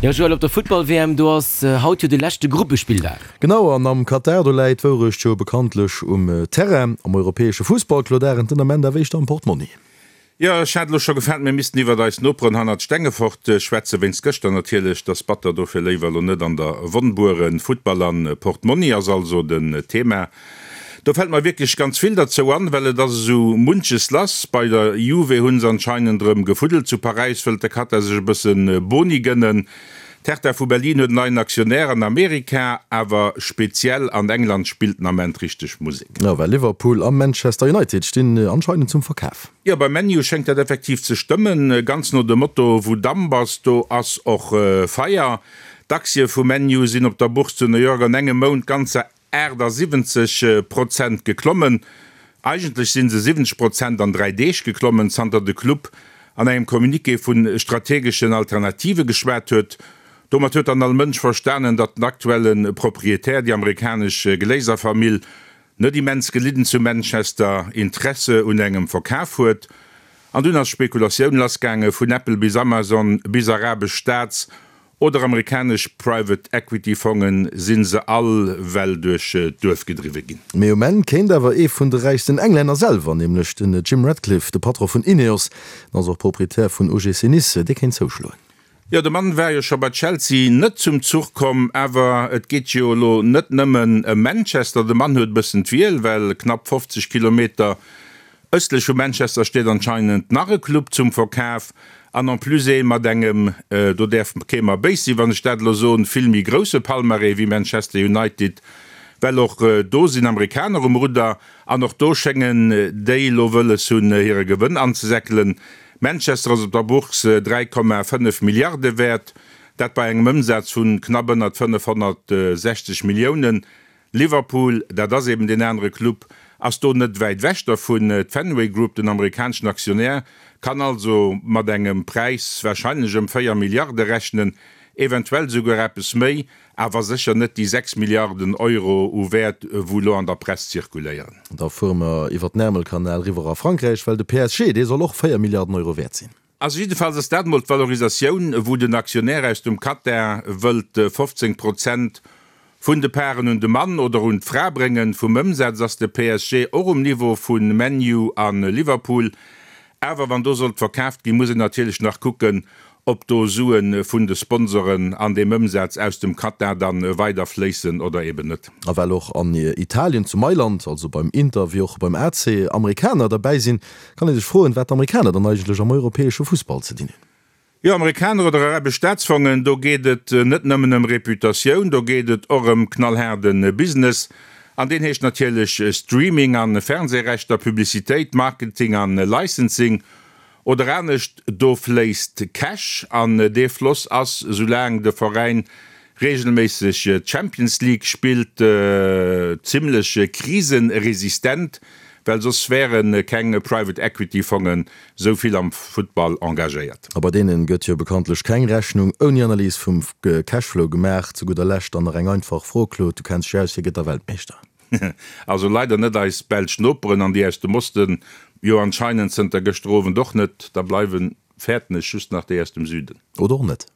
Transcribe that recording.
Jo Joël, op der Futtball-WM, do ass haut jo de leschte Gruppespilldag. Genau, an am Katar, do läit d'Wourecht jo bekanntlech um Terrain. Am europäesche Fussball, Claude Arend, den Ament awer éischter am Portmonni. Jo, ech hat elo scho gefaart, mir missten iwwert eis Noperen hannert Stengefort schwätzen, wéinst gëschter natierlech. T'ass batter, dofir léiwer elo net an der Wonn bueren. Futtball an Portmonni ass also den Thema. Do fällt mer wierklech ganz vill derzou an, well et ass esou munches lass. Bei der Juve hunn se anscheinend erëm gefuddelt, zu Paräis wëllt de Katar sech e bësse Boni gënnen, d'Hertha vu Berlin huet en neien Aktionär an Amerika, awer speziell an England spillt den Ament richteg Musek. Jo, well Liverpool a Manchester United stinn anscheinend zum Verkaf. Jo, beim ManU schéngt dat effektiv ze stëmmen, ganz no dem Motto, wou Damp ass, do ass och Feier. D'Aktie vu ManU sinn op der Bourse zu New York an engem Mount ganzer 78 Prozent geklommen. Eigentlech si se 70 Prozent an 3 Deeg geklommen, zanter de Club an engem Communiqué vu strategeschen Alternative geschwat huet. Domat huet dann all Mënsch verstanen, datt den aktuelle Proprietär, déi amerikanesch Glazer-Famill, net immens gelidden zu Manchester Interesse un engem Verkaf huet. An dunn ass Spekulatioun lassgaange vun Apple bis Amazon bis arabesch Staats Oder amerikanesch Private Equity Fongen, sinn se all well duerch d'Duerf gedriwwe ginn. Mee um Enn kéint awer ee vun de räichsten Englänner selwer, nämlech den Jim Ratcliffe, de Patron vun Ineos, en ass och Proprietär vun OGC Nice, dee kéint zouschloen. Jo, de Mann war jo scho bei Chelsea net zum Zuch komm, awer et geet jo elo net nëmmen ëm Manchester. De Mann huet e bëssen d'Wiel, well knapp 50 Kilometer Ëstlech vu Manchester steet anscheinend nach e Club zum Verkaf an en plus ee mat engem, do däerf kee mer béis sinn, wann ech dat elo soen, vill méi grousse Palmarès wéi Manchester United, well och do sinn Amerikaner um Rudder an och do schéngen déi elo wëlles hunn, hire Gewënn anzesäckelen. Manchester ass op der Bourse 3,5 Milliarde wäert, dat bei engem Ëmsaz vu knapp ënnert 560 Milliounen. Liverpool, dat ass eben deen anere Club, ass do net wäit ewech dervun. D'Fenway Group, den amerikaneschen Aktionär, kann also mat engem Präis warscheinlech ëm 4 Milliarde rechnen, eventuell esouguer eppes méi, awer sécher net déi 6 Milliarden Euro u Wäert, wou elo an der Press zirkuléieren. Da fuere mer iwwer den Ärmelkanal eriwwer a Frankräich, well de PSG, dee soll och 4 Milliarden Euro wäert sinn. Also jiddefalls ass dat mol d'Valorisatioun, wou den Aktionär aus dem Katar wëllt 15 Prozent vun de Paren un de Mann oder un d'Fra bréngen. Vum Ëmsaz ass de PSG och um Niveau vu ManU a Liverpool. Awer wann do sollt verkaaft ginn, muss een natierlech nach kucken, ob do Sue vun de Sponsoren an deem Ëmsaz aus dem Katar dann weider fléissen oder eben net. A well och an Italien, zu Mailand, also beim Inter wéi och beim AC, Amerikaner derbäi sinn, Kann ee sech froen, wat d'Amerikaner dann eigentlech am europäesche Fussball ze dinn hunn. Jo, Amerikaner oder arabesch Staatsfongen, do geet et net nëmmen ëm Reputatioun, do geet et och ëm knallhaarde Business. An deen heescht natierlech Streaming an Fernsehrechter, Publicitéit, Marketing an Licensing. Oder anescht, do fléisst Cash an dee Floss ass, soulaang de Veräin reegelméisseg d'Champions League spillt, zimmlech kriseresistent, well soss wäre keng Private Equity Fongen sou vill am Futtball engagéiert. A bei deenen gëtt jo bekanntlech keng Rechnung ouni Analys vum Cashflow gemaach. Zu gudder Lescht dann nach eng einfach Fro, Claude, du kenns dech aus, Wie gëtt da Weltmeeschter? Also leider net eis belsch Noperen an déi aus dem Osten jo anscheinend zënter gëschter Owend och net. Da bleiwen, fäerten ech, just nach déi aus dem Süden. Oder och net.